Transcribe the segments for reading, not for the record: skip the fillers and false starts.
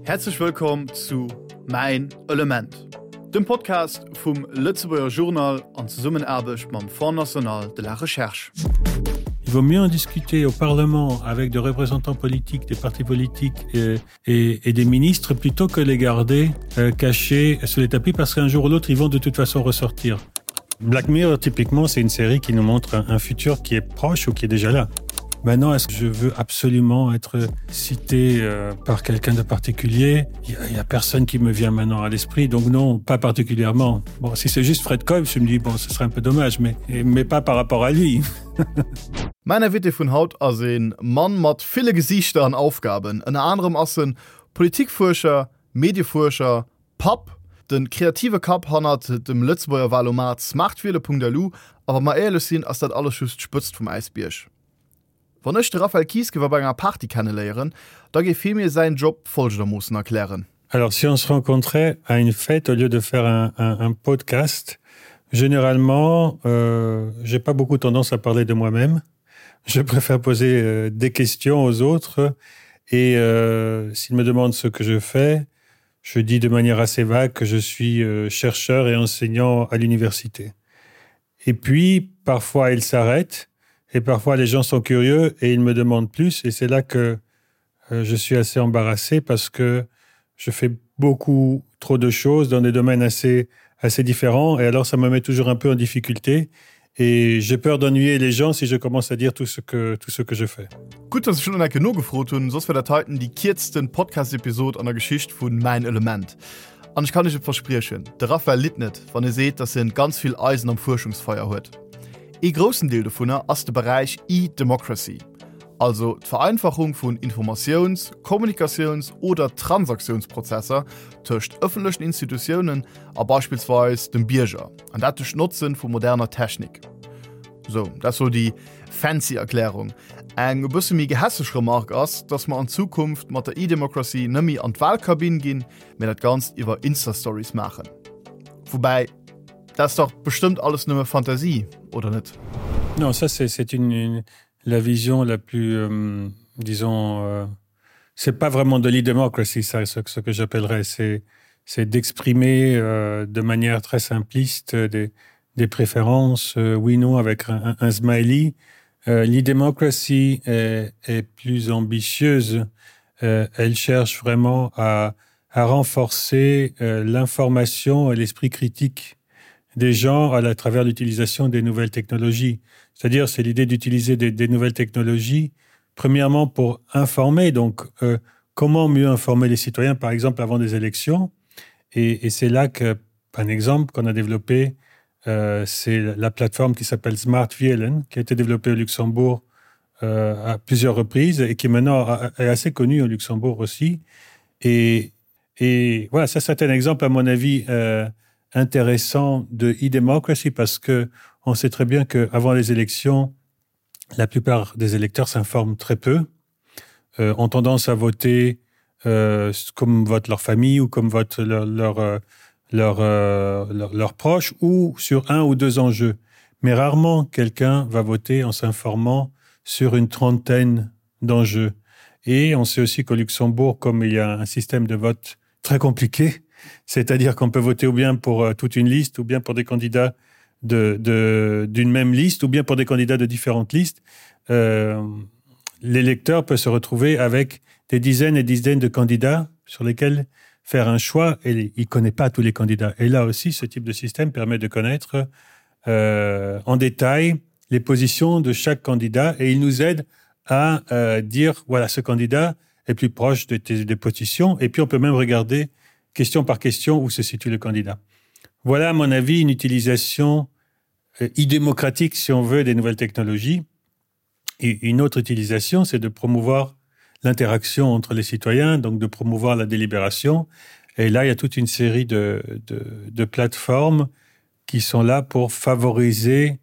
Häerzlech wëllkomm zu Mäin Element, dem Podcast vum Lëtzebuerger Journal an Zesummenaarbecht mam Fonds national de la recherche. Il vaut mieux en discuter au Parlement avec des représentants politiques, des partis politiques et, et, et des ministres plutôt que les garder euh, cachés sous les tapis parce qu'un jour ou l'autre ils vont de toute façon ressortir. Black Mirror typiquement c'est une série qui nous montre un, un futur qui est proche ou qui est déjà là. Maintenant est-ce que je veux absolument être cité euh, par quelqu'un de particulier Il n'y a, a personne qui me vient maintenant à l'esprit donc non pas particulièrement. Bon si c'est juste Fred Kolb, je me dis bon ce serait un peu dommage mais, mais pas par rapport à lui. Mäin Invité vun haut ass e Mann mat ville Gesiichter an Aufgaben. Ënner anerem ass en Politikfuerscher, Mediefuerscher, Papp, de kreative Kapp hannert dem Lëtzebuerger Wahlomat smartwiele.lu a wa mer éierlech sinn, ass dat alles just d'Spëtzt vum Äisbierg. Wann ech de Raphaël Kies géif op enger Party kenneléieren, da géif hie mir säin Job folgendermoossen erklären. Alors si on se rencontrait à une fête au lieu de faire un, un, un podcast, généralement euh, j'ai pas beaucoup tendance à parler de moi-même. Je préfère poser euh, des questions aux autres et euh, s'ils me demandent ce que je fais, je dis de manière assez vague que je suis euh, chercheur et enseignant à l'université. Et puis parfois ils s'arrêtent et parfois les gens sont curieux et ils me demandent plus et c'est là que euh, je suis assez embarrassé parce que je fais beaucoup trop de choses dans des domaines assez assez différents et alors ça me met toujours un peu en difficulté et j'ai peur d'ennuyer les gens si je commence à dire tout ce que tout ce que je fais. Gutt, dass ech schonn eng Kéier nogefrot hunn, soss wär dat heiten déi kierzten Podcast-Episod an der Geschicht vun Mäin Element. An ech kann iech et verspriechen, de Raphaël litt net, wann e seet, dass en ganz vill Eisen am Fuerschungsfeier huet. Ee groussen Deel dovunner ass de Beräich E-Democracy, also d'Vereinfachung vun Informatiouns-, Kommunikatiouns oder Transaktiounsprozesser tëscht ëffentlechen Institutiounen a beispillsweis dem Bierger, an dat duerch d'Notzen vu moderner Technik. Sou, dat sou déi fancy Erklärung. Eng e bësse méi gehässeg Remark ass, dass mer an Zukunft mat der E-Democracy nëmmi an d'Wahlkabinn ginn, mee dat Ganzt iwwer Insta-Stories maachen. Woubäi, dat ass dach bestëmmt alles nëmme Fantasie, oder net? Non, ça c'est une, une la vision la plus euh, disons euh, c'est pas vraiment de l'e-democracy ça ce, ce que j'appellerais c'est c'est d'exprimer euh, de manière très simpliste des, des préférences euh, oui non avec un, un, un smiley euh, l'e-democracy est, est plus ambitieuse euh, elle cherche vraiment à, à renforcer euh, l'information et l'esprit critique des gens à la travers l'utilisation des nouvelles technologies c'est-à-dire c'est l'idée d'utiliser des, des nouvelles technologies premièrement pour informer donc euh, comment mieux informer les citoyens par exemple avant des élections et, et c'est là que un exemple qu'on a développé euh, c'est la plateforme qui s'appelle smart VLN qui a été développée au Luxembourg euh, à plusieurs reprises et qui maintenant est assez connue au Luxembourg aussi et et voilà ça c'est un exemple à mon avis euh, intéressant de e-democracy parce que on sait très bien que avant les élections la plupart des électeurs s'informent très peu euh, ont tendance à voter euh, comme vote leur famille ou comme vote leur leur euh, leur, euh, leur, leur proche ou sur un ou deux enjeux. Mais rarement quelqu'un va voter en s'informant sur une trentaine d'enjeux. Et on sait aussi qu'au Luxembourg, comme il y a un système de vote très compliqué, c'est-à-dire qu'on peut voter ou bien pour euh, toute une liste ou bien pour des candidats d'une de, de, même liste ou bien pour des candidats de différentes listes, euh, l'électeur peut se retrouver avec des dizaines et dizaines de candidats sur lesquels faire un choix et il connaît pas tous les candidats. Et là aussi, ce type de système permet de connaître euh, en détail les positions de chaque candidat et il nous aide à euh, dire voilà ce candidat est plus proche de tes, des positions et puis on peut même regarder question par question où se situe le candidat. Voilà à mon avis une utilisation euh, idémocratique si on veut des nouvelles technologies. Et une autre utilisation, c'est de promouvoir l'interaction entre les citoyens, donc de promouvoir la délibération. Et là, il y a toute une série de, de, de plateformes qui sont là pour favoriser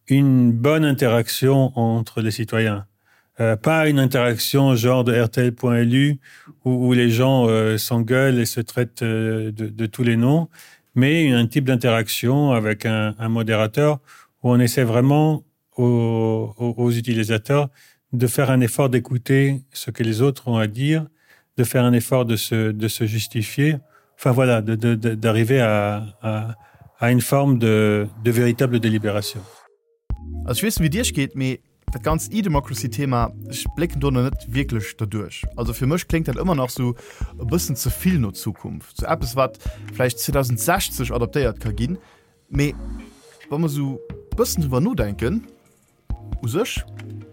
une bonne interaction entre les citoyens. Euh, pas une interaction genre de RTL.lu où, où les gens euh, s'engueulent et se traitent euh, de, de tous les noms, mais un type d'interaction avec un, un modérateur où on essaie vraiment aux, aux, aux utilisateurs de faire un effort d'écouter ce que les autres ont à dire, de faire un effort de se, de se justifier, enfin voilà, d'arriver à, à, à une forme de, de véritable délibération. Also ech weess net wéi et iech geet, mee dat ganzt E-Democracy-Thema, ech blécken do nach net wierklech derduerch. Also fir mech kléngt dat ëmmer nach sou e bëssen ze vill no Zukunft, sou eppes wat vläicht 2060 adaptéiert ka ginn. Mee wa mer sou bëssen driwwer nodenken, U sech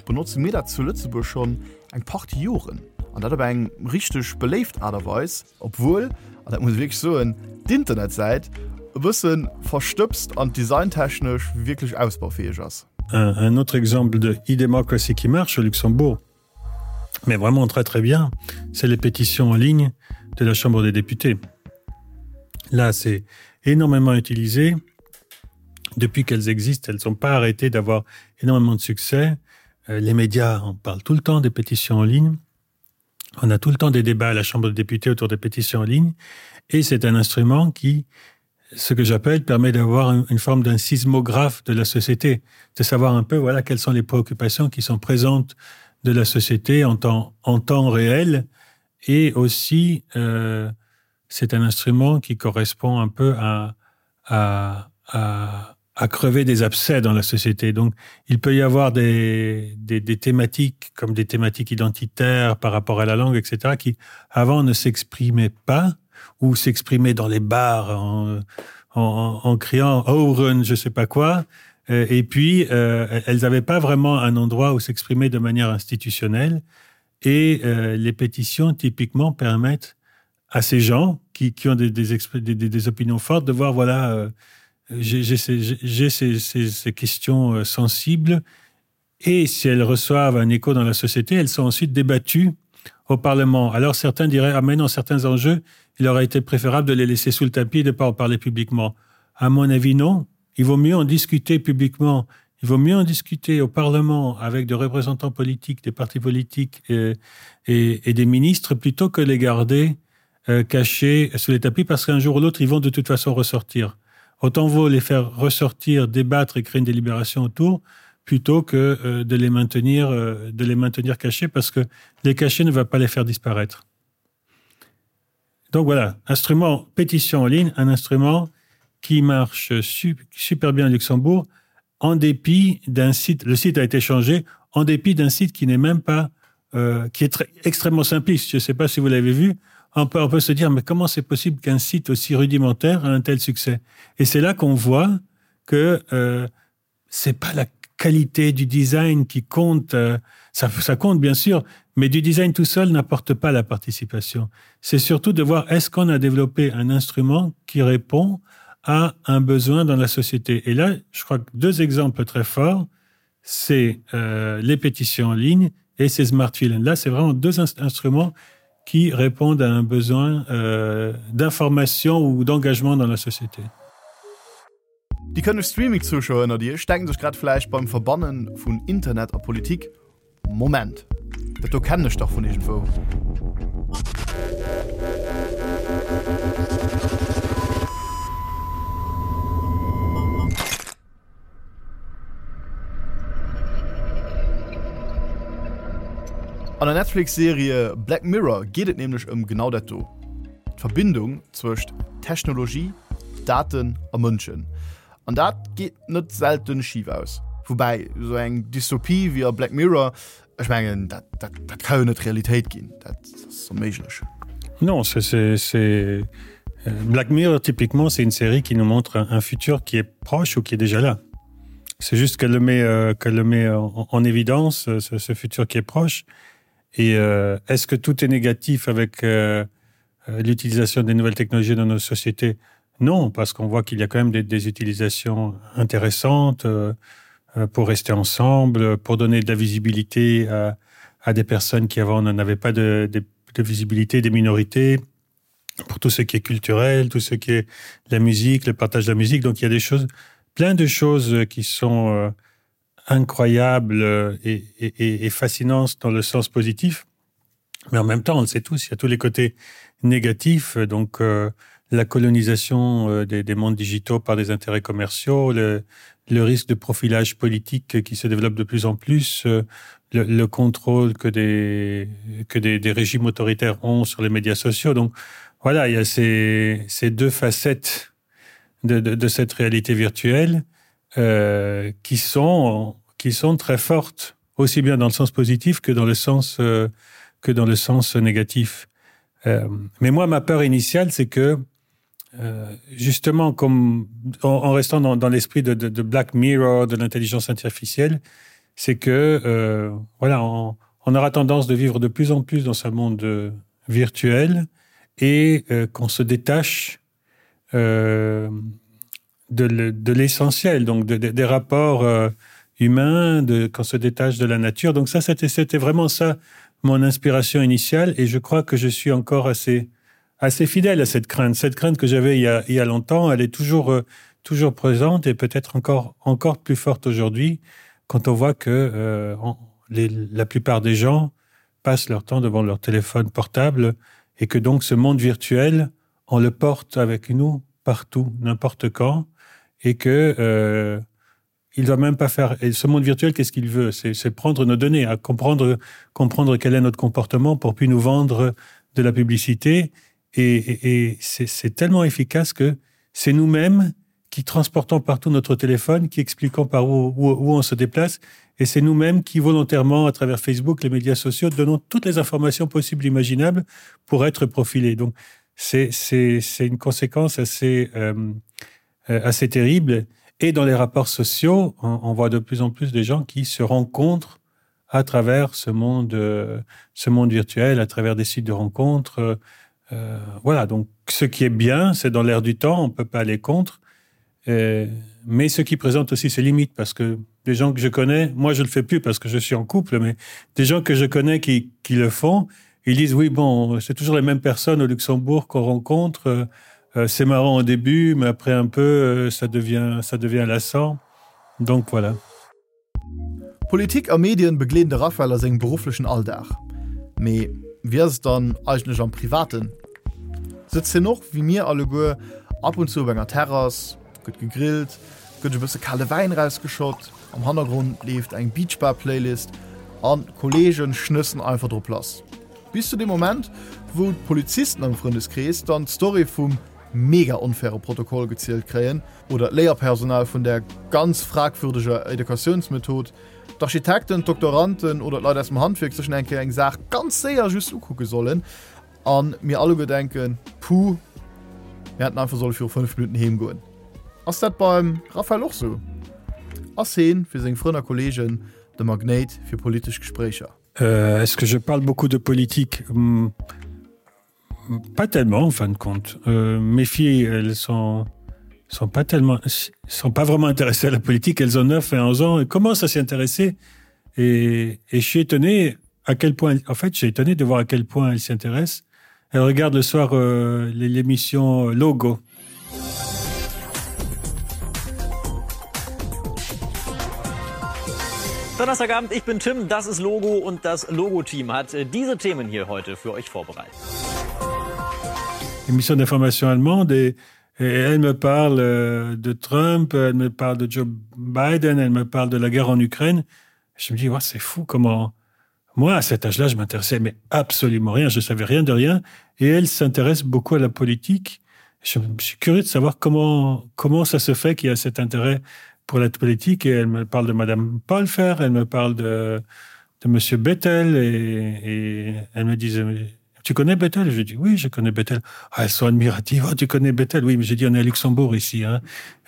benotze mir dat zu Lëtzebuerg schonn eng Partie Joren, an dat op eng richteg beléift Aart a Weis, obwuel, an dat muss ech wierklech soen, d'Internetsäit e bësse verstëbst an designtechnesch wierklech ausbaufäeg ass. Un autre exemple de e-democracy qui marche au Luxembourg, mais vraiment très très bien, c'est les pétitions en ligne de la Chambre des députés. Là, c'est énormément utilisé. Depuis qu'elles existent, elles n'ont pas arrêté d'avoir énormément de succès. Euh, les médias en parlent tout le temps des pétitions en ligne. On a tout le temps des débats à la Chambre des députés autour des pétitions en ligne. Et c'est un instrument qui, ce que j'appelle, permet d'avoir une forme d'un sismographe de la société, de savoir un peu voilà, quelles sont les préoccupations qui sont présentes de la société en temps, en temps réel. Et aussi, euh, c'est un instrument qui correspond un peu à, à, à, à crever des abcès dans la société. Donc il peut y avoir des, des, des thématiques comme des thématiques identitaires par rapport à la langue, etc., qui avant ne s'exprimaient pas ou s'exprimaient dans les bars en, en, en criant Oren, je sais pas quoi. Euh, et puis euh, elles n'avaient pas vraiment un endroit où s'exprimer de manière institutionnelle. Et euh, les pétitions typiquement permettent à ces gens qui, qui ont des, des, des, des, des opinions fortes de voir voilà euh, j'ai ces, ces, ces, ces questions euh, sensibles et si elles reçoivent un écho dans la société, elles sont ensuite débattues au Parlement. Alors certains diraient ah mais non, certains enjeux, il aurait été préférable de les laisser sous le tapis et de ne pas en parler publiquement. À mon avis, non. Il vaut mieux en discuter publiquement. Il vaut mieux en discuter au Parlement avec des représentants politiques, des partis politiques et, et, et des ministres plutôt que les garder euh, cachés sous les tapis parce qu'un jour ou l'autre, ils vont de toute façon ressortir. Autant vaut les faire ressortir, débattre et créer une délibération autour plutôt que euh, de les maintenir euh, de les maintenir cachés parce que les cachets ne va pas les faire disparaître. Donc voilà, instrument pétition en ligne, un instrument qui marche super bien à Luxembourg en dépit d'un site le site a été changé en dépit d'un site qui n'est même pas euh, qui est très, extrêmement simpliste. Je ne sais pas si vous l'avez vu, on peut, on peut se dire mais comment c'est possible qu'un site aussi rudimentaire a un tel succès et c'est là qu'on voit que euh, c'est pas la qualité du design qui compte euh, ça, ça compte bien sûr mais du design tout seul n'apporte pas la participation c'est surtout de voir est-ce qu'on a développé un instrument qui répond à un besoin dans la société et là je crois que deux exemples très forts c'est euh, les pétitions en ligne et ces smartphones là c'est vraiment deux instruments qui répondent à un besoin euh, d'information ou d'engagement dans la société. Déi kënneg Streaming-Zuschauer ënnert Iech denken sech grad vläicht beim Verbanne vun Internet a Politik, Moment, dat do kennen ech dach vun iergendwou. An der Netflix-Serie Black Mirror geet et nämlech ëm genau dat do, d'Verbindung zwëscht Technologie, Daten a Mënschen. An dat geet net selten schif aus. Woubäi, esou eng Dystopie wéi a Black Mirror, ech mengen, dat, dat, dat ka jo net Realitéit ginn, dat ass onméiglech. Non, c'est, c'est, c'est... Euh, Black Mirror, typiquement, c'est une série qui nous montre un, un futur qui est proche ou qui est déjà là. C'est juste qu'elle le met, euh, qu'elle le met en, en évidence, euh, ce, ce futur qui est proche. Et euh, est-ce que tout est négatif avec euh, euh l'utilisation des nouvelles technologies dans nos sociétés Non, parce qu'on voit qu'il y a quand même des, des utilisations intéressantes euh, euh pour rester ensemble, pour donner de la visibilité à, à des personnes qui avant n'en avaient pas de, de, de visibilité, des minorités, pour tout ce qui est culturel, tout ce qui est la musique, le partage de la musique. Donc il y a des choses, plein de choses qui sont euh, incroyables et, et, et fascinantes dans le sens positif. Mais en même temps, on le sait tous, il y a tous les côtés négatifs, donc euh, la colonisation euh, des, des mondes digitaux par des intérêts commerciaux, le, le risque de profilage politique qui se développe de plus en plus, euh, le, le contrôle que des que des, des régimes autoritaires ont sur les médias sociaux donc voilà il y a ces, ces deux facettes de, de, de cette réalité virtuelle euh, qui sont qui sont très fortes aussi bien dans le sens positif que dans le sens euh, que dans le sens négatif euh, mais moi ma peur initiale c'est que euh, justement comme en, en restant dans, dans l'esprit de, de, de black mirror de l'intelligence artificielle c'est que euh, voilà on, on aura tendance de vivre de plus en plus dans ce monde euh, virtuel et euh, qu'on se détache euh, de l'essentiel donc de, de, des rapports euh, humains de qu'on se détache de la nature donc ça c'était c'était vraiment ça mon inspiration initiale et je crois que je suis encore assez assez fidèle à cette crainte cette crainte que j'avais il, il y a longtemps elle est toujours euh, toujours présente et peut-être encore encore plus forte aujourd'hui quand on voit que euh, on, les, la plupart des gens passent leur temps devant leur téléphone portable et que donc ce monde virtuel on le porte avec nous partout n'importe quand et que euh, il doit même pas faire et ce monde virtuel qu'est-ce qu'il veut c'est prendre nos données à comprendre comprendre quel est notre comportement pour puis nous vendre de la publicité et, et, et c'est tellement efficace que c'est nous-mêmes qui transportons partout notre téléphone qui expliquons par où, où, où on se déplace et c'est nous-mêmes qui volontairement à travers facebook les médias sociaux donnons toutes les informations possibles imaginables pour être profilés donc c'est une conséquence assez euh, euh, assez terrible et dans les rapports sociaux on, on voit de plus en plus des gens qui se rencontrent à travers ce monde euh, ce monde virtuel à travers des sites de rencontres euh, euh, voilà donc ce qui est bien c'est dans l'air du temps on peut pas aller contre euh, mais ce qui présente aussi ses limites parce que des gens que je connais moi je le fais plus parce que je suis en couple mais des gens que je connais qui, qui le font ils disent oui bon c'est toujours les mêmes personnes au luxembourg qu'on rencontre euh, euh, c'est marrant au début mais après un peu euh, ça devient ça devient lassant donc voilà Politik a Medien begleeden de Raphaël a sengem berufflechen Alldag. Mee wéi ass et dann eigentlech am Privaten? Sëtzt hien och, wéi mir alleguer, ab und zu op enger Terrass, gëtt gegrillt, gëtt e bësse kale Wäin rausgeschott, am Hannergrond leeft eng Beachbar-Playlist an d'Kolleegen schnëssen einfach drop lass. Bis zu deem Moment, wou d'Polizisten am Frëndeskrees dann d'Story vum mega onfaire Protokoll gezielt kréien oder d'Léierpersonal vun där ganz fragwürdeger Educatiounsmethod, d'Architekten, d'Doktoranden oder d'Leit aus dem Handwierk sech eng Kéier eng Saach ganz séier just ukucke sollen a mir alleguer denken, Puh, mir hätten einfach solle viru 5 Minutten heem goen. Ass dat beim Raphaël och sou? Ass heen fir seng Frënn a Kolleegen de Magnéit fir politesch Gespréicher? Euh, est-ce que je parle beaucoup de politique? Hmm. Pas tellement en fin de compte. Euh, mes filles, elles sont sont pas tellement sont pas vraiment intéressées à la politique, elles ont 9 et 11 ans et commencent à s'y intéresser et, et je suis étonné à quel point en fait j'ai étonné de voir à quel point elles s'y intéressent. Elles regardent le soir euh, l'émission Logo. Donnerstagabend, ich bin Tim, das ist Logo und das Logo-Team hat äh, diese Themen hier heute für euch vorbereitet. Émission d'information allemande et, et elle me parle euh, de Trump, elle me parle de Joe Biden, elle me parle de la guerre en Ukraine. Je me dis ouais, c'est fou comment moi à cet âge-là je m'intéressais mais absolument rien, je savais rien de rien et elle s'intéresse beaucoup à la politique. Je, je suis curieux de savoir comment comment ça se fait qu'il y a cet intérêt pour la politique et elle me parle de madame Paulfer, elle me parle de de monsieur Bettel et, et elle me disait tu connais Bethel je dis oui je connais Bethel ah, elles sont admiratives oh, tu connais Bethel oui mais j'ai dit on est à Luxembourg ici hein.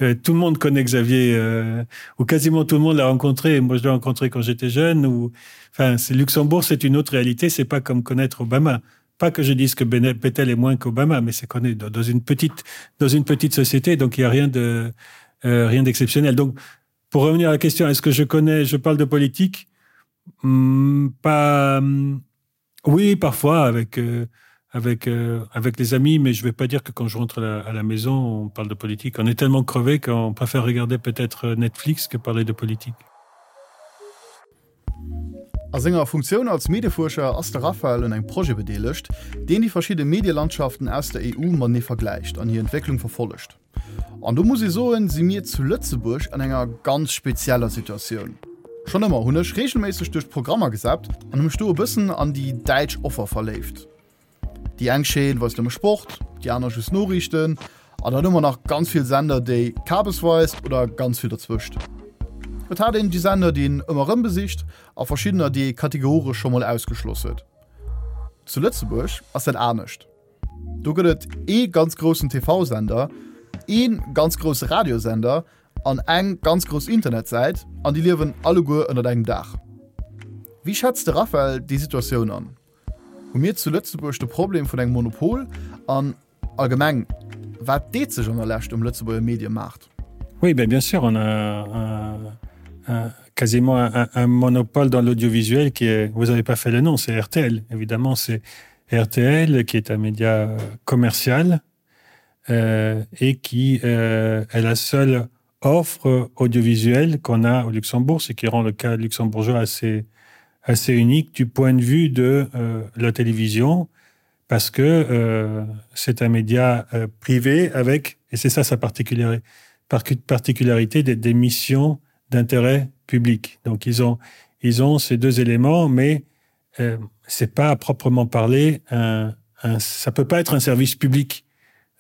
euh, tout le monde connaît Xavier euh, ou quasiment tout le monde l'a rencontré moi je l'ai rencontré quand j'étais jeune ou enfin c'est Luxembourg c'est une autre réalité c'est pas comme connaître Obama pas que je dise que Bethel est moins qu'Obama mais c'est qu'on est dans une petite dans une petite société donc il y a rien de euh, rien d'exceptionnel donc pour revenir à la question est-ce que je connais je parle de politique hmm, pas hmm, Oui, parfois avec, euh, avec, euh, avec les amis, mais je ne vais pas dire que quand je rentre à la, à la maison, on parle de politique. On est tellement crevé qu'on préfère regarder peut-être euh, Netflix que parler de politique. A senger Funktioun als Mediefuerscher ass de Raphaël un engem Projet bedeelegt, deen déi verschidde Medielandschaften aus der EU matenee vergläicht an hir Entwécklung verfollegt. An do muss ee soen, si mir zu Lëtzebuerg an enger ganz spezieller Situatioun. Schonn ëmmer hunn ech reegelméisseg duerch d'Programmer gesappt an hu mech do e bëssen an déi däitsch Offer verléift. Déi eng Chaîne weist nëmme Sport, déi aner just Noriichten an dann hu mer nach ganz vill Sender, déi Kabes weist oder ganz vill derzwëscht. Et hat een déi Sender, déi een ëmmer erëm besicht a verschiddener, déi ee kategoresch scho mol ausgeschloss huet. Zu Lëtzebuerg ass dat anescht. Do gëtt et ee ganz groussen TV-Sender, ee ganz grousse Radiosender an eng ganz grouss Internetsäit an déi liewen alleguer ënnert engem Daach. Wéi schätzt de Raphael déi Situatioun an? Hu mir zu Lëtzebuerg de Problem vun engem Monopol an allgemeng, wat deet sech an der Lescht um Lëtzebuerger Mediemaart? Oui, ben bien sûr, on a un, un, quasiment un, un monopole dans l'audiovisuel qui est, vous avez pas fait le nom, c'est RTL, évidemment, c'est RTL qui est un média commercial euh, et qui euh, est la seule offre audiovisuelle qu'on a au Luxembourg, ce qui rend le cas luxembourgeois assez, assez unique du point de vue de euh, la télévision, parce que euh, c'est un média euh, privé avec, et c'est ça sa particularité, particularité des, des missions d'intérêt public. Donc ils ont, ils ont ces deux éléments, mais euh, c'est pas à proprement parler un, un, ça peut pas être un service public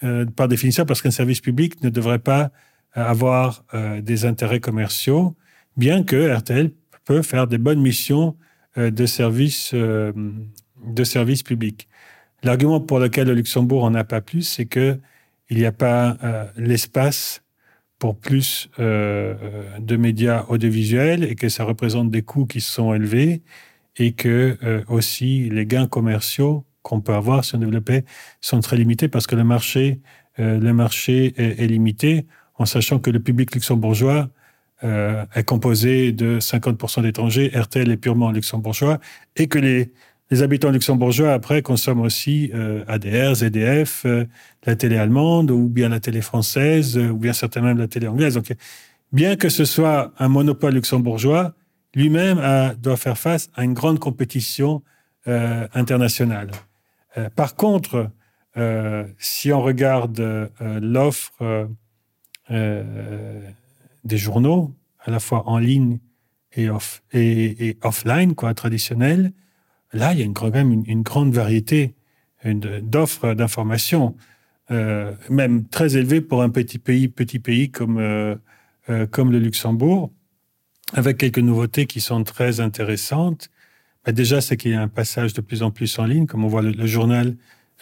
euh, par définition parce qu'un service public ne devrait pas euh, avoir euh, des intérêts commerciaux, bien que RTL peut faire des bonnes missions euh, de service euh, de service public. L'argument pour lequel le Luxembourg en a pas plus, c'est que il n'y a pas euh, l'espace pour plus euh, de médias audiovisuels et que ça représente des coûts qui sont élevés et que euh, aussi les gains commerciaux qu'on peut avoir si on développait sont très limités parce que le marché, euh, le marché est, est limité en sachant que le public luxembourgeois euh, est composé de 50% d'étrangers, RTL est purement luxembourgeois et que les, les habitants luxembourgeois après consomment aussi euh, ADR, ZDF, euh, la télé allemande ou bien la télé française euh, ou bien certainement même la télé anglaise. Donc, bien que ce soit un monopole luxembourgeois, lui-même doit faire face à une grande compétition euh, internationale. Euh, par contre, euh, si on regarde euh, l'offre euh, euh, des journaux, à la fois en ligne et, off, et, et offline, quoi, traditionnel, là, il y a une, quand même une, une grande variété d'offres d'informations, euh, même très élevée pour un petit pays, petit pays comme, euh, euh, comme le Luxembourg, avec quelques nouveautés qui sont très intéressantes. Mais déjà, c'est qu'il y a un passage de plus en plus en ligne, comme on voit le, le journal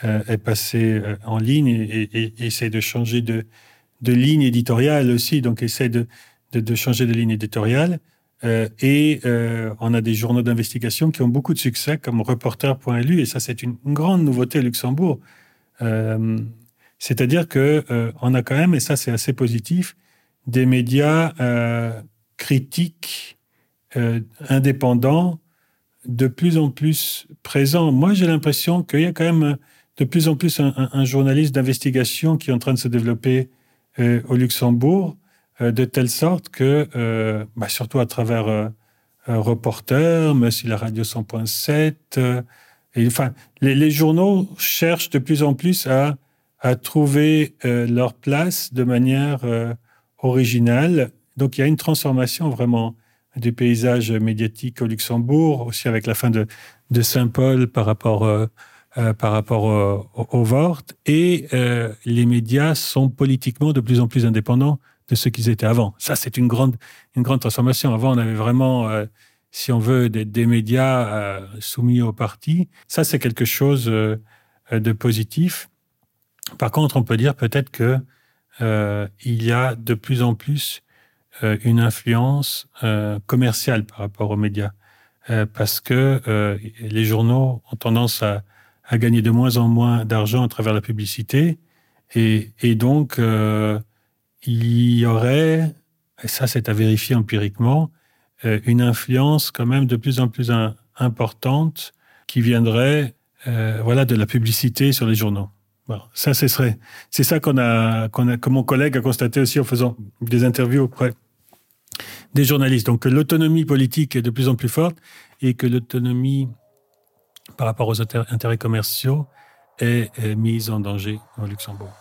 euh, est passé euh, en ligne et, et, et essaie de changer de, de ligne éditoriale aussi, donc essaie de, de, de changer de ligne éditoriale. Euh, et euh, on a des journaux d'investigation qui ont beaucoup de succès comme reporter.lu et ça c'est une grande nouveauté à Luxembourg. Euh, C'est-à-dire que euh, on a quand même, et ça c'est assez positif, des médias euh, critiques euh, indépendants de plus en plus présents. Moi j'ai l'impression qu'il y a quand même de plus en plus un, un, un journaliste d'investigation qui est en train de se développer euh, au Luxembourg, euh, de telle sorte que euh, bah, surtout à travers euh, euh, reporter, mais aussi la radio 100.7 euh, et enfin les, les journaux cherchent de plus en plus à, à trouver euh, leur place de manière euh, originale. Donc il y a une transformation vraiment du paysage médiatique au Luxembourg, aussi avec la fin de, de Saint-Paul par rapport, euh, euh, par rapport euh, au, au Vort. Et euh, les médias sont politiquement de plus en plus indépendants de ce qu'ils étaient avant. Ça, c'est une grande, une grande transformation. Avant, on avait vraiment, euh, si on veut, des, des médias euh, soumis au parti. Ça, c'est quelque chose euh, de positif. Par contre, on peut dire peut-être que euh, il y a de plus en plus euh, une influence euh, commerciale par rapport aux médias euh, parce que euh, les journaux ont tendance à, à gagner de moins en moins d'argent à travers la publicité et, et donc euh, il y aurait et ça c'est à vérifier empiriquement euh, une influence quand même de plus en plus un, importante qui viendrait euh, voilà de la publicité sur les journaux. Bon, ça ce serait c'est ça qu'on a qu'on a que mon collègue a constaté aussi en faisant des interviews auprès des journalistes donc l'autonomie politique est de plus en plus forte et que l'autonomie par rapport aux intérêts commerciaux est, est mise en danger au Luxembourg.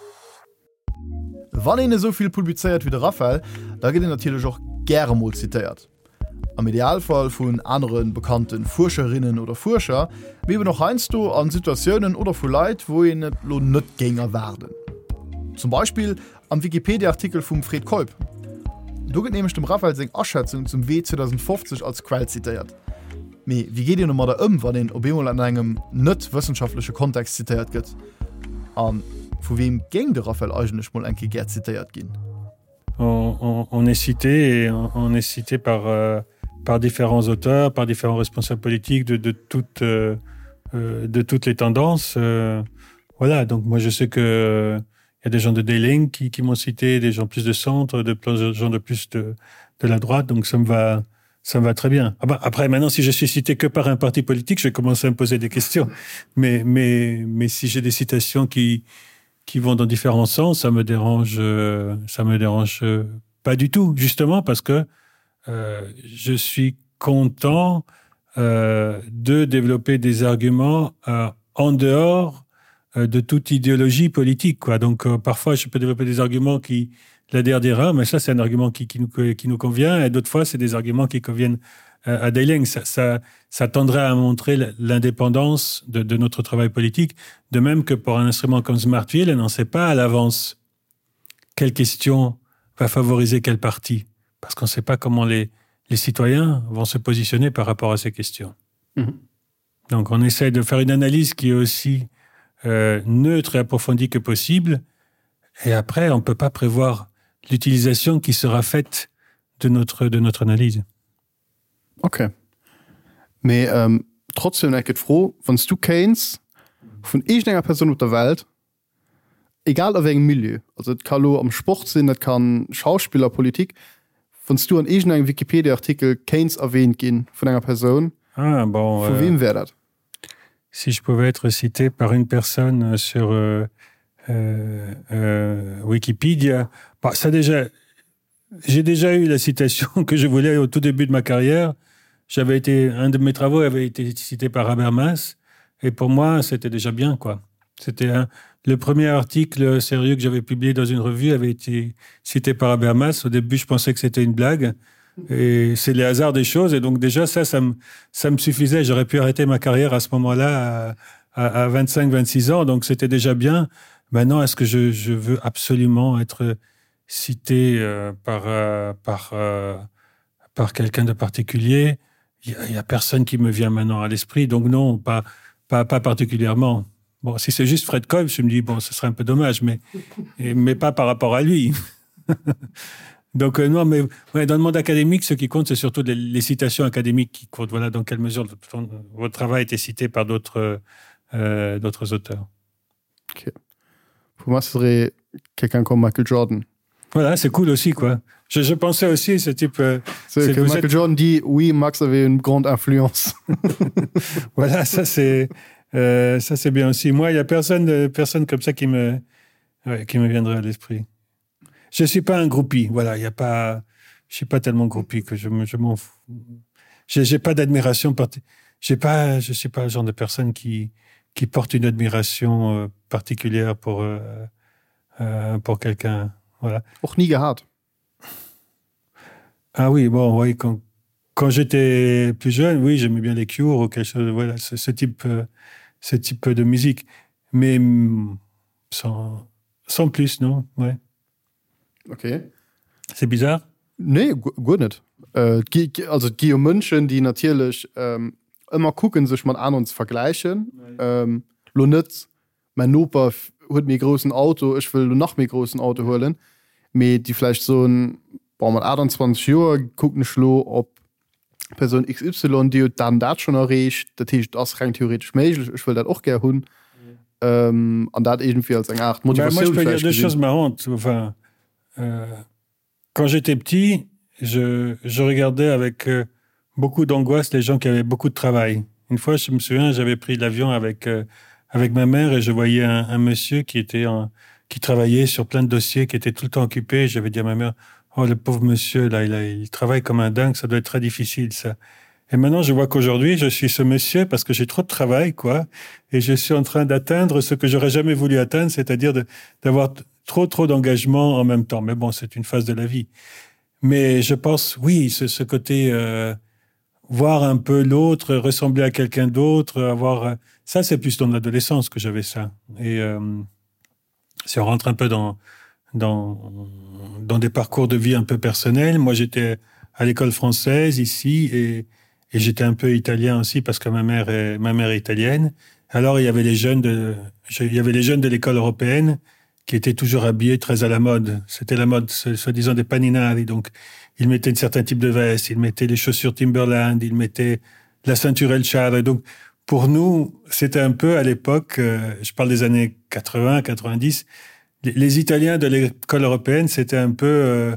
Wann een esou vill publizéiert wéi de Raphaël, da gëtt een natierlech och gäre mol zitéiert. Am Idealfall vun anere bekannte Fuerscherinnen oder Fuerscher, mee eben och heiansdo a Situatiounen oder vu Leit, wou een et lo net géing erwaarden. Zum Beispill am Wikipedia-Artikel vum Fred Keup. Do gëtt nämlech dem Raphael seng Aschätzung zum Wee 2050 als Quell zitéiert. Mee wéi geet een domadder ëm, wann een op eemol an engem net wëssenschaftleche Kontext zitéiert gëtt? A vu weem géing de Raphael eigentlech mol eng Kéier gär zitéiert ginn? On, on, on est cité et on, on est cité par, euh, par différents auteurs, par différents responsables politiques de, de, toutes, euh, euh de toutes les tendances. Euh, voilà, donc moi je sais que il y a des gens de Dayling qui, qui m'ont cité, des gens plus de centre, de plein gens de plus de, de la droite, donc ça me va, ça me va très bien. Ah ben, après maintenant si je suis cité que par un parti politique, je vais commencer à me poser des questions. Mais, mais, mais si j'ai des citations qui, qui vont dans différents sens, ça me dérange euh, ça me dérange euh, pas du tout justement parce que euh, je suis content euh, de développer des arguments euh, en dehors euh, de toute idéologie politique quoi donc euh, parfois je peux développer des arguments qui la DRDR mais ça c'est un argument qui, qui nous qui nous convient et d'autres fois c'est des arguments qui conviennent euh, à Dailing ça, ça ça tendrait à montrer l'indépendance de, de notre travail politique de même que pour un instrument comme smartville on n'en sait pas à l'avance quelle question va favoriser quel parti parce qu'on ne sait pas comment les les citoyens vont se positionner par rapport à ces questions mm -hmm. donc on essaie de faire une analyse qui est aussi euh, neutre et approfondie que possible et après on ne peut pas prévoir l'utilisation qui sera faite de notre de notre analyse Ok. Mee ähm, trotzdem enke d'Fro, wann s du kéints vun iergendenger Persoun op der Welt, egal a wéi engem Milieu, also et ka lo am Sport sinn, dat kann Schauspiller, Politik, wann s du an iergendengem Wikipedia-Artikel kéints erwähnt ginn vun enger Persoun, Ah bon, vu weem wär dat? Si je pouvais être cité par une personne sur euh, euh, euh, Wikipedia, bah, ça déjà J'ai déjà eu la citation que je voulais au tout début de ma carrière. J'avais été un de mes travaux avait été cité par Habermas et pour moi c'était déjà bien quoi. C'était un le premier article sérieux que j'avais publié dans une revue avait été cité par Habermas. Au début je pensais que c'était une blague et c'est les hasards des choses et donc déjà ça ça me, ça me suffisait. J'aurais pu arrêter ma carrière à ce moment-là à, à, à 25 26 ans donc c'était déjà bien. Maintenant est-ce que je, je veux absolument être cité euh, par euh, par euh, par quelqu'un de particulier il y, y a personne qui me vient maintenant à l'esprit donc non pas pas pas particulièrement bon si c'est juste Fred Cobb je me dis bon ce serait un peu dommage mais et, mais pas par rapport à lui donc euh, non mais ouais, dans le monde académique ce qui compte c'est surtout les, les citations académiques qui comptent voilà dans quelle mesure votre travail était cité par d'autres euh, d'autres auteurs okay. Pour moi, ce serait quelqu'un comme Michael Jordan. Voilà, c'est cool aussi quoi. Je, je pensais aussi ce type euh, que Michael êtes... Jordan dit oui Max avait une grande influence. voilà ça c'est euh, ça c'est bien aussi. Moi il y a personne euh, personne comme ça qui me ouais, qui me viendrait à l'esprit. Je suis pas un groupie voilà il y a pas je suis pas tellement groupie que je me je m'en fous. J'ai pas d'admiration j'ai pas je suis pas le genre de personne qui qui porte une admiration euh, particulière pour euh, euh, pour quelqu'un voilà Och nie gehat ah oui bon oui quand quand j'étais plus jeune oui j'aimais bien les cures ou quelque chose voilà ce, ce type euh, ce type de musique mais mm, sans sans plus non ouais Ok. C'est bizarre? Nee, guer net. Äh, also et gi jo Mënschen, déi natierlech ähm, ëmmer kucken, sech mat aneren ze vergläichen. Ähm, lo net, mäin Noper huet méi groussen Auto, ech wëll lo nach méi groussen Auto huelen, mee déi vläicht soen, bon, mat 28 Joer kucken ech lo op Persoun XY, déi huet dat an dat schonn erreecht, dat heescht, et ass reng theoretesch méiglech, ech wëll dat och gär hunn. An dat iergendwéi als eng Aart Motivatioun vläicht gesinn. Marrant, enfin, euh, quand j'étais petit, je, je regardais avec euh, beaucoup d'angoisse les gens qui avaient beaucoup de travail. Une fois, je me souviens, j'avais pris l'avion avec, euh, avec ma mère et je voyais un, un monsieur qui était en, qui travaillait sur plein de dossiers, qui était tout le temps occupé. J'avais dit à ma mère: Oh le pauvre monsieur là, il, a, il travaille comme un dingue, ça doit être très difficile ça. Et maintenant je vois qu'aujourd'hui je suis ce monsieur parce que j'ai trop de travail quoi et je suis en train d'atteindre ce que j'aurais jamais voulu atteindre, c'est-à-dire d'avoir trop trop d'engagement en même temps. Mais bon, c'est une phase de la vie. Mais je pense oui, ce, ce côté euh, voir un peu l'autre, ressembler à quelqu'un d'autre, avoir euh, ça c'est plus dans l'adolescence que j'avais ça. Et euh, si on rentre un peu dans, dans, dans des parcours de vie un peu personnels, moi j'étais à l'école française ici et, et j'étais un peu italien aussi parce que ma mère est, ma mère est italienne. Alors il y avait les jeunes de, il y avait les jeunes de l'école européenne qui étaient toujours habillés très à la mode. C'était la mode soi-disant des paninari. Donc ils mettaient un certain type de veste, ils mettaient les chaussures Timberland, ils mettaient la ceinture El Char. Et donc pour nous, c'était un peu à l'époque, euh, je parle des années 80, 90, les, les Italiens de l'école européenne, c'était un peu euh,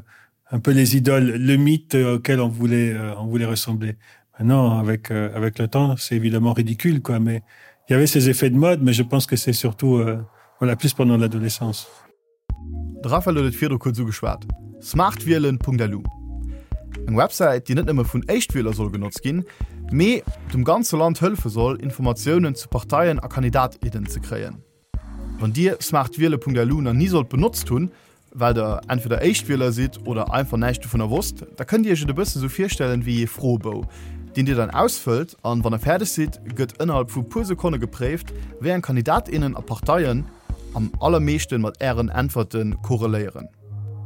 un peu les idoles, le mythe auquel on voulait, euh, on voulait ressembler. Maintenant, avec, euh, avec le temps, c'est évidemment ridicule, quoi, mais il y avait ces effets de mode, mais je pense que c'est surtout euh, voilà, plus pendant l'adolescence. De Raphaël huet et virdru kuerz ugeschwat, smartwielen.lu. Eng Websäit, déi net nëmme vun Éischtwieler soll genotzt ginn, mee dem ganze Land hëllefe soll, Informatiounen zu Parteien a Kandidat, innen ze kréien. Wann Dir smartwiele.lu nach ni sollt benotzt hunn, well der entweder Éischtwieler sidd oder einfach näischt dovunner wosst, da kënnt Dir Iech et e bësse sou virstellen wéi ee Froebou, deen Dir dann ausfëllt an wann der fäerdeg sidd, gëtt ënnerhalb vu puer Sekonne gepréift, wéi eng Kandidat, innen a Parteien am allermeeschten mat Ären Äntwerte korreléieren.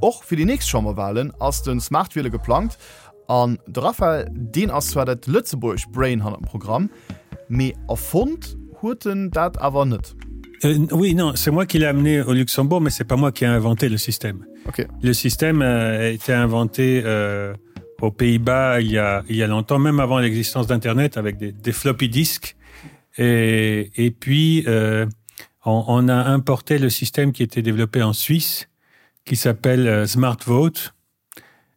Och fir déi nächst Chamberwahlen ass de Smartwiele geplangt An de Raphael, deen ass zwar dat lëtzebuergescht Brain hannert dem Programm, mee erfonnt huet en dat awer net. Euh, oui, non, c'est moi qui l'ai amené au Luxembourg, mais c'est pas moi qui ai inventé le système. Okay. Le système euh, a été inventé euh, aux Pays-Bas il, y a, il y a longtemps, même avant l'existence d'Internet, avec des, des floppy disques. Et, et puis, euh, on, on a importé le système qui était développé en Suisse, qui s'appelle euh, Smart Vote.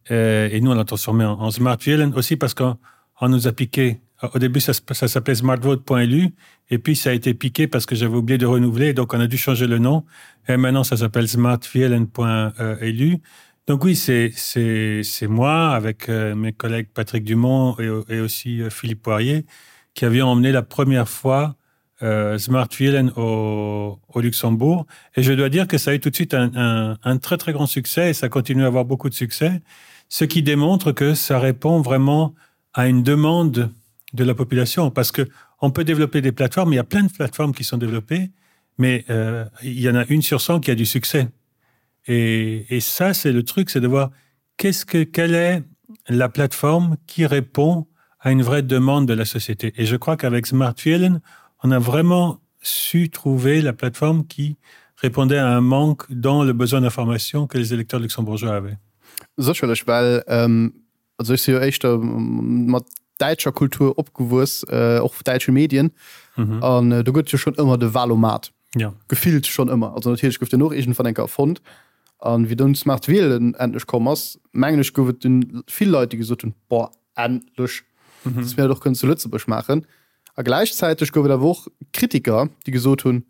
Euh, et nous, on l'a transformé en, en Smart Violent aussi parce qu'on nous a piqué. Au début, ça, ça s'appelait smartvote.lu et puis ça a été piqué parce que j'avais oublié de renouveler, donc on a dû changer le nom. Et maintenant, ça s'appelle smartvielen.lu. Donc oui, c'est moi avec euh, mes collègues Patrick Dumont et, et aussi euh, Philippe Poirier qui avions emmené la première fois euh, Smartvielen au, au Luxembourg. Et je dois dire que ça a eu tout de suite un, un, un très très grand succès et ça continue à avoir beaucoup de succès, ce qui démontre que ça répond vraiment à une demande de la population parce que on peut développer des plateformes, il y a plein de plateformes qui sont développées, mais euh, il y en a une sur 100 qui a du succès. Et, et ça, c'est le truc, c'est de voir qu'est-ce que, quelle est la plateforme qui répond à une vraie demande de la société. Et je crois qu'avec Smartfielen, on a vraiment su trouver la plateforme qui répondait à un manque dans le besoin d'information que les électeurs luxembourgeois avaient. Sécherlech, well also ech si jo éischter mat däitscher Kultur opgewuess, och däitsche Medien, an do gëtt et jo schonn ëmmer de Wahlomat. Gefillt schonn ëmmer. Also natierlech gouf deen och iergendwann eng Kéier erfonnt. An wéi dunn d'Smart Wielen endlech komm ass, mengen ech, gouf et dunn vill Leit, déi gesot hunn, Boah, endlech, dass mir dat och kënnen zu Lëtzebuerg maachen. A gläichzäiteg gouf et awer och Kritiker, déi gesot hunn,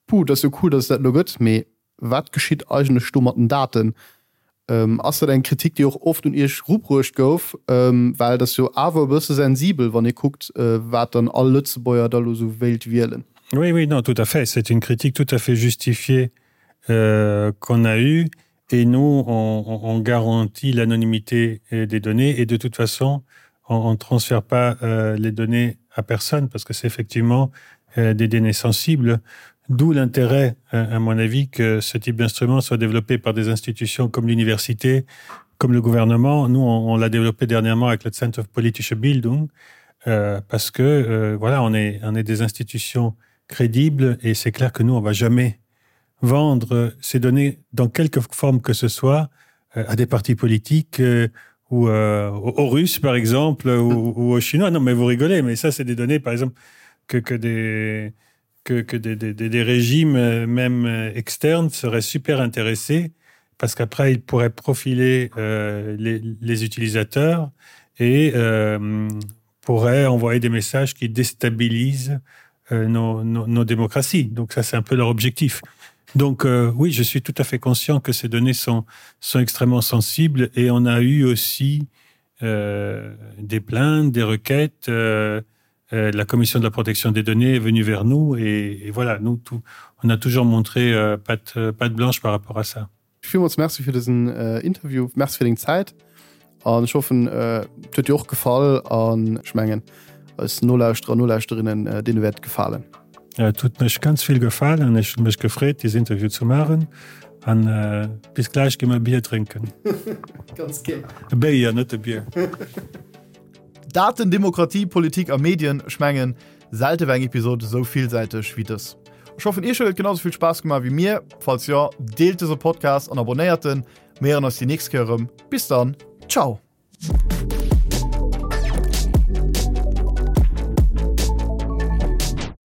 Puh, dat ass jo cool, dass et dat elo gëtt, mee wat geschitt eigentlech do mat den Daten? Ass dat eng Kritik, déi och oft un Iech erubruecht gouf? Well et ass jo awer e bësse sensibel, wann ee kuckt, wat dann all Lëtzebuerger da elo esou wéilt wielen. Oui, oui, non, tout à fait. C'est une critique tout à fait justifiée euh, qu'on a eue. Et nous, on, on garantit l'anonymité euh, des données. Et de toute façon, on ne transfère pas euh, les données à personne parce que c'est effectivement euh, des données sensibles. D'où l'intérêt, euh, à mon avis, que ce type d'instrument soit développé par des institutions comme l'université, comme le gouvernement. Nous, on, on l'a développé dernièrement avec le Center of Politische Bildung, euh, parce que euh, voilà, on est, on est des institutions crédibles et c'est clair que nous, on va jamais vendre ces données dans quelque forme que ce soit euh, à des partis politiques euh, ou euh, aux Russes, par exemple, ou, ou aux Chinois. Non, mais vous rigolez, mais ça, c'est des données, par exemple, que, que des que, que des, des, des régimes euh, même euh, externes seraient super intéressés parce qu'après ils pourraient profiler euh, les, les utilisateurs et euh, pourraient envoyer des messages qui déstabilisent euh, nos, nos, nos démocraties. Donc ça c'est un peu leur objectif. Donc euh, oui, je suis tout à fait conscient que ces données sont, sont extrêmement sensibles et on a eu aussi euh, des plaintes, des requêtes. Euh, euh, la commission de la protection des données est venue vers nous et, et voilà nous tout, on a toujours montré euh, patte, euh, patte blanche par rapport à ça. Villmools Merci fir dësen Interview, Merci fir deng Zäit. An ech hoffen, et huet dir och gefall an ech mengen eis Nolauschterer, Nolauschterinnen, deene wäert et gefalen. Ja, et huet mech ganz vill gefalen. Ech hu mech gefreet, dieses Interview ze maachen. An bis gläich gi mer e Bier drénken. Ganz gär. E Béier, net e Bier. Daten, Demokratie, Politik a Medien, ech mengen, selte war eng Episod esou villsäiteg wéi dës. Ech hoffen, iech huet et genau esou vill Spaass gemaach wéi mir. Falls jo, deelt dëse Podcast an abonnéiert en. Mir héieren eis déi nächst Kéier erëm. Bis dann, ciao!